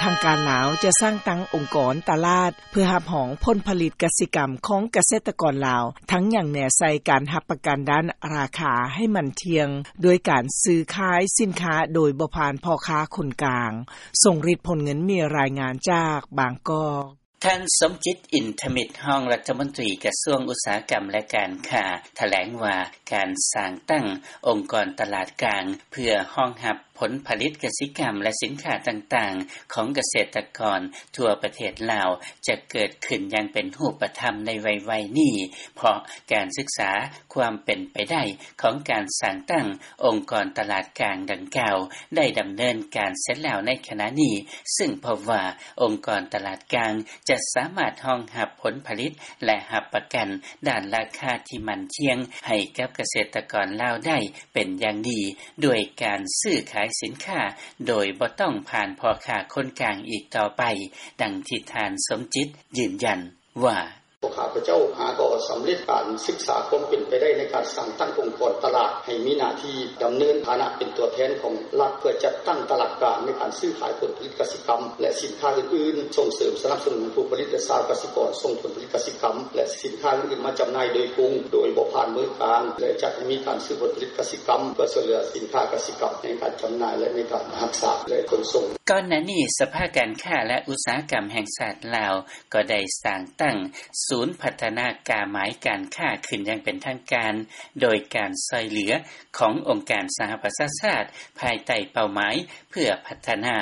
ທາງການລາວຈະສ້າງຕັ້ງອົງກອນຕະຫຼາດ ເພື່ອຮັບຮອງຜົນຜະລິດກະສິກຳຂອງກະເສດຕະກອນລາວ, ທັງຍັງແນໃສ່ການຮັບປະກັນດ້ານລາຄາໃຫ້ໝັ້ນທ່ຽງ ດ້ວຍການຊື້ຂາຍສິນຄ້າໂດຍບໍ່ຜ່ານພໍ່ຄ້າຄົນກາງ. ຊົງລິດ ພົນເງິນ ມີລາຍງານຈາກບາງກອກ. ທ່ານ ສົມຈິດ ອິນທະມິດ ຮອງລັດຖະມົນຕີກະຊວງອຸດສາຫະກຳ ແລະ ການຄ້າ ຖະແຫຼງວ່າ ການສ້າງຕັ້ງອົງກອນຕະຫຼາດກາງ ເພື່ອຮອງຮັບຜົນຜະລິດກະສິກຳ ແລະ ສິນຄ້າຕ່າງໆ ຂອງກະເສດຕະກອນທົ່ວປະເທດລາວ ຈະເກີດຂຶ້ນຢ່າງເປັນຮູບປະທຳໃນໄວໆນີ້ ເພາະການສຶກສາຄວາມເປັນໄປໄດ້ຂອງການສ້າງຕັ້ງອົງກອນຕະຫຼາດກາງດັ່ງກ່າວ ໄດ້ດຳເນີນການເສັດແລ້ວໃນຂະນະນີ້, ຊຶ່ງພົບວ່າ ອົງກອນຕະຫຼາດກາງຈະສາມາດຮອງຮັບຜົນຜະລິດ ແລະ ຮັບປະກັນດ້ານລາຄາທີ່ໝັ້ນທ່ຽງໃຫ້ກັບກະເສດຕະກອນລາວໄດ້ເປັນຢ່າງດີ ດ້ວຍການຊື້ຂາຍສິນຄ້າໂດຍບໍ່ຕ້ອງຜ່ານພໍ່ຄ້າຄົນກາງອີກຕໍ່ໄປ, ດັ່ງທີ່ທ່ານ ສົມຈິດ ຢືນຢັນວ່າ. ພວກຂ້າພະເຈົ້າຫາກໍສຳເລັດການສຶກສາຄວາມເປັນໄປໄດ້ໃນການສ້າງຕັ້ງອົງກອນຕະຫຼາດ ໃຫ້ມີໜ້າທີ່ດຳເນີນຖານະເປັນຕົວແທນຂອງລັດ ເພື່ອຈັດຕັ້ງຕະຫຼາດກາງໃນການຊື້ຂາຍຜົນຜະລິດກະສິກຳ ແລະ ສິນຄ້າອື່ນໆ, ສົ່ງເສີມສະໜັບສະໜູນຜູ້ຜະລິດ ແລະ ຊາວກະສິກອນສົ່ງຜົນຜະລິດກະສິກຳ ແລະ ສິນຄ້າອື່ນໆມາຈຳໜ່າຍໂດຍກົງ ໂດຍບໍ່ຜ່ານມືກາງ ແລະ ຈັດໃຫ້ມີການຊື້ຜົນຜະລິດກະສິກຳ ເພື່ອຊ່ວຍເຫຼືອສິນຄ້າກະສິກຳໃນການຈຳໜ່າຍ ແລະ ໃນການຮັກສາ ແລະ ຂົນສົ່ງ. ກ່ອນໜ້ານີ້ ສະພາການຄ້າ ແລະ ອຸດສາຫະກຳແຫ່ງຊາດລາວ ກໍໄດ້ສ້າງຕັ້ງສູນພັດທະນາກາໝາຍການຄ້າຂຶ້ນຢ່າງເປັນທາງການ ໂດຍການຊ່ອຍເຫຼືອຂອງອົງການສະຫະປະຊາຊາດ ພາຍໃຕ້ເປົ້າໝາຍເພື່ອພັດທະນາ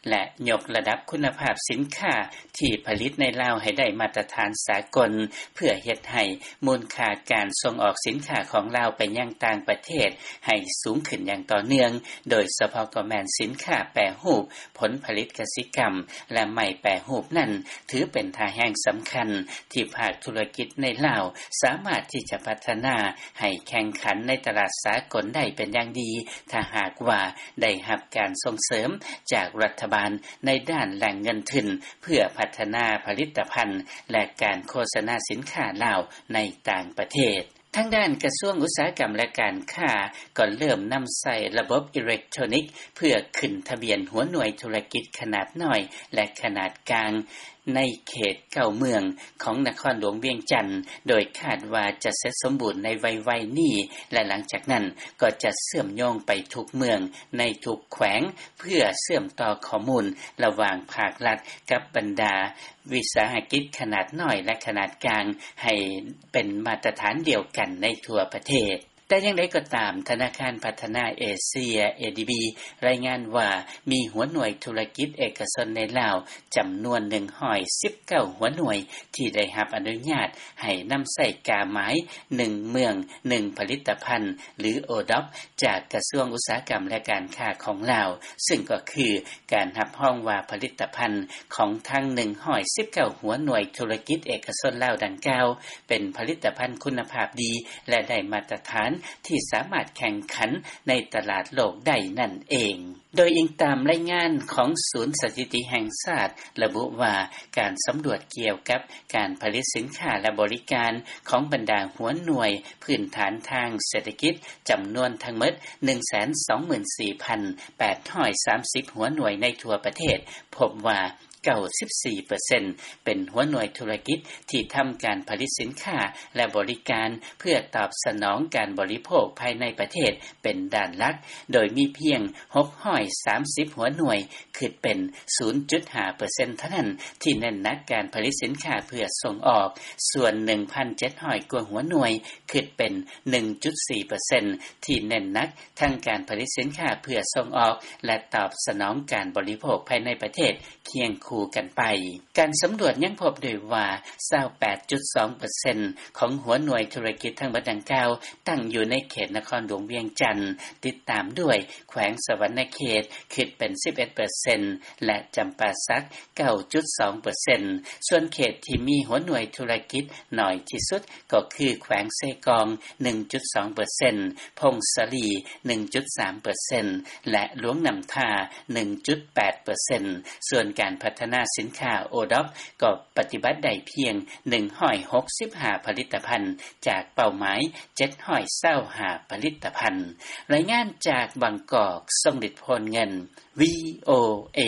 ແລະ ຍົກລະດັບຄຸນນະພາບສິນຄ້າທີ່ຜະລິດໃນລາວໃຫ້ໄດ້ມາດຕະຖານສາກົນ ເພື່ອເຮັດໃຫ້ມູນຄ່າການສົ່ງອອກສິນຄ້າຂອງລາວໄປຍັງຕ່າງປະເທດໃຫ້ສູງຂຶ້ນຢ່າງຕໍ່ເນື່ອງ, ໂດຍສະເພາະກໍແມ່ນສິນຄ້າແປຮູບ, ຜົນຜະລິດກະສິກຳ ແລະ ໄມ້ແປຮູບນັ້ນ ຖືເປັນທ່າແຮງສຳຄັນທີ່ພາກທຸລະກິດໃນລາວສາມາດທີ່ຈະພັດທະນາໃຫ້ແຂ່ງຂັນໃນຕະຫຼາດສາກົນໄດ້ເປັນຢ່າງດີ ຖ້າຫາກວ່າໄດ້ຮັບການສົ່ງເສີມຈາກລັດຖະບານໃນດ້ານແຫຼ່ງເງິນທຶນ ເພື່ອພັດທະນາຜະລິດຕະພັນ ແລະ ການໂຄສະນາສິນຄ້າລາວໃນຕ່າງປະເທດ. ທາງດ້ານກະຊວງອຸດສາຫະກຳ ແລະ ການຄ້າ ກໍເລີ່ມນຳໃຊ້ລະບົບອີເລັກໂທຣນິກ ເພື່ອຂຶ້ນທະບຽນຫົວໜ່ວຍທຸລະກິດຂະໜາດນ້ອຍ ແລະ ຂະໜາດກາງ ໃນເຂດເກົ້າເມືອງຂອງນະຄອນຫຼວງວຽງຈັນ, ໂດຍຄາດວ່າຈະເສັດສົມບູນໃນໄວໆນີ້ ແລະ ຫຼັງຈາກນັ້ນກໍຈະເຊື່ອມໂຍງໄປທຸກເມືອງໃນທຸກແຂວງ ເພື່ອເຊື່ອມຕໍ່ຂໍ້ມູນລະຫວ່າງພາກລັດກັບບັນດາວິສາຫະກິດຂະໜາດນ້ອຍ ແລະ ຂະໜາດກາງ ໃຫ້ເປັນມາດຕະຖານດຽວກັນໃນທົ່ວປະເທດ. ແຕ່ຢ່າງໃດກໍຕາມ, ທະນາຄານພັດທະນາເອເຊຍ ເອດີບີ ລາຍງານວ່າ ມີຫົວໜ່ວຍທຸລະກິດເອກະຊົນໃນລາວ ຈຳນວນໜຶ່ງຮ້ອຍສິບເກົ້າຫົວໜ່ວຍ ທີ່ໄດ້ຮັບອະນຸຍາດໃຫ້ນຳໃຊ້ກາໝາຍໜຶ່ງເມືອງໜຶ່ງຜະລິດຕະພັນ ຫຼື ໂອດອບ ຈາກກະຊວງອຸດສາຫະກຳ ແລະ ການຄ້າຂອງລາວ, ຊຶ່ງກໍຄືການຮັບຮອງວ່າຜະລິດຕະພັນຂອງທັງໜຶ່ງຮ້ອຍສິບເກົ້າຫົວໜ່ວຍທຸລະກິດເອກະຊົນລາວດັ່ງກ່າວ ເປັນຜະລິດຕະພັນຄຸນນະພາບດີ ແລະ ໄດ້ມາດຕະຖານທີ່ສາມາດແຂ່ງຂັນໃນຕະຫຼາດໂລກໄດ້ນັ້ນເອງ. ໂດຍອີງຕາມລາຍງານຂອງສູນສະຖິຕິແຫ່ງຊາດ ລະບຸວ່າ ການສຳຫຼວດກ່ຽວກັບການຜະລິດສິນຄ້າ ແລະ ບໍລິການຂອງບັນດາຫົວໜ່ວຍພື້ນຖານທາງເສດຖະກິດ ຈຳນວນທັງໝົດໜຶ່ງແສນສອງໝື່ນສີ່ພັນແປດຮ້ອຍສາມສິບຫົວໜ່ວຍໃນທົ່ວປະເທດ ພົບວ່າ ເກົ້າສິບສີ່ເປີເຊັນ ເປັນຫົວໜ່ວຍທຸລະກິດທີ່ທຳການຜະລິດສິນຄ້າ ແລະ ບໍລິການ ເພື່ອຕອບສະໜອງການບໍລິໂພກພາຍໃນປະເທດເປັນດ້ານຫຼັກ, ໂດຍມີພຽງຫົກຮ້ອຍສາມສິບຫົວໜ່ວຍ ຄິດເປັນສູນຈຸດຫ້າເປີເຊັນເທົ່ານັ້ນ ທີ່ເນັ້ນໜັກການຜະລິດສິນຄ້າເພື່ອສົ່ງອອກ, ສ່ວນໜຶ່ງພັນເຈັດຮ້ອຍກວ່າຫົວໜ່ວຍ ຄິດເປັນໜຶ່ງຈຸດສີ່ເປີເຊັນ ທີ່ເນັ້ນໜັກທັງການຜະລິດສິນຄ້າເພື່ອສົ່ງອອກ ແລະ ຕອບສະໜອງການບໍລິໂພກພາຍໃນປະເທດຄຽງຄູ່ກັນໄປ. ການສຳຫຼວດຍັງພົບດ້ວຍວ່າ ຊາວແປດຈຸດສອງເປີເຊັນຂອງຫົວໜ່ວຍທຸລະກິດທັງໝົດດັ່ງກ່າວ ຕັ້ງຢູ່ໃນເຂດນະຄອນຫຼວງວຽງຈັນ, ຕິດຕາມດ້ວຍແຂວງສະຫວັນນະເຂດ ຄິດເປັນສິບເອັດເປີເຊັນ ແລະ ຈຳປາສັກ ເກົ້າຈຸດສອງເປີເຊັນ. ສ່ວນເຂດທີ່ມີຫົວໜ່ວຍທຸລະກິດໜ້ອຍທີ່ສຸດ ກໍຄືແຂວງເຊກອງ ໜຶ່ງຈຸດສອງເປີເຊັນ, ຜົ້ງສາລີ ໜຶ່ງຈຸດສາມເປີເຊັນ ແລະ ຫຼວງນ້ຳທາ ໜຶ່ງຈຸດແປດເປີເຊັນ. ສ່ວນການພັດທະນາສິນຄ້າໂອດອບ ກໍປະຕິບັດໄດ້ພຽງໜຶ່ງຮ້ອຍຫົກສິບຫ້າຜະລິດຕະພັນ ຈາກເປົ້າໝາຍເຈັດຮ້ອຍຊາວຫ້າຜະລິດຕະພັນ. ລາຍງານຈາກບາງກອກ, ຊົງລິດ ໂພນເງິນ, ວີໂອເອ.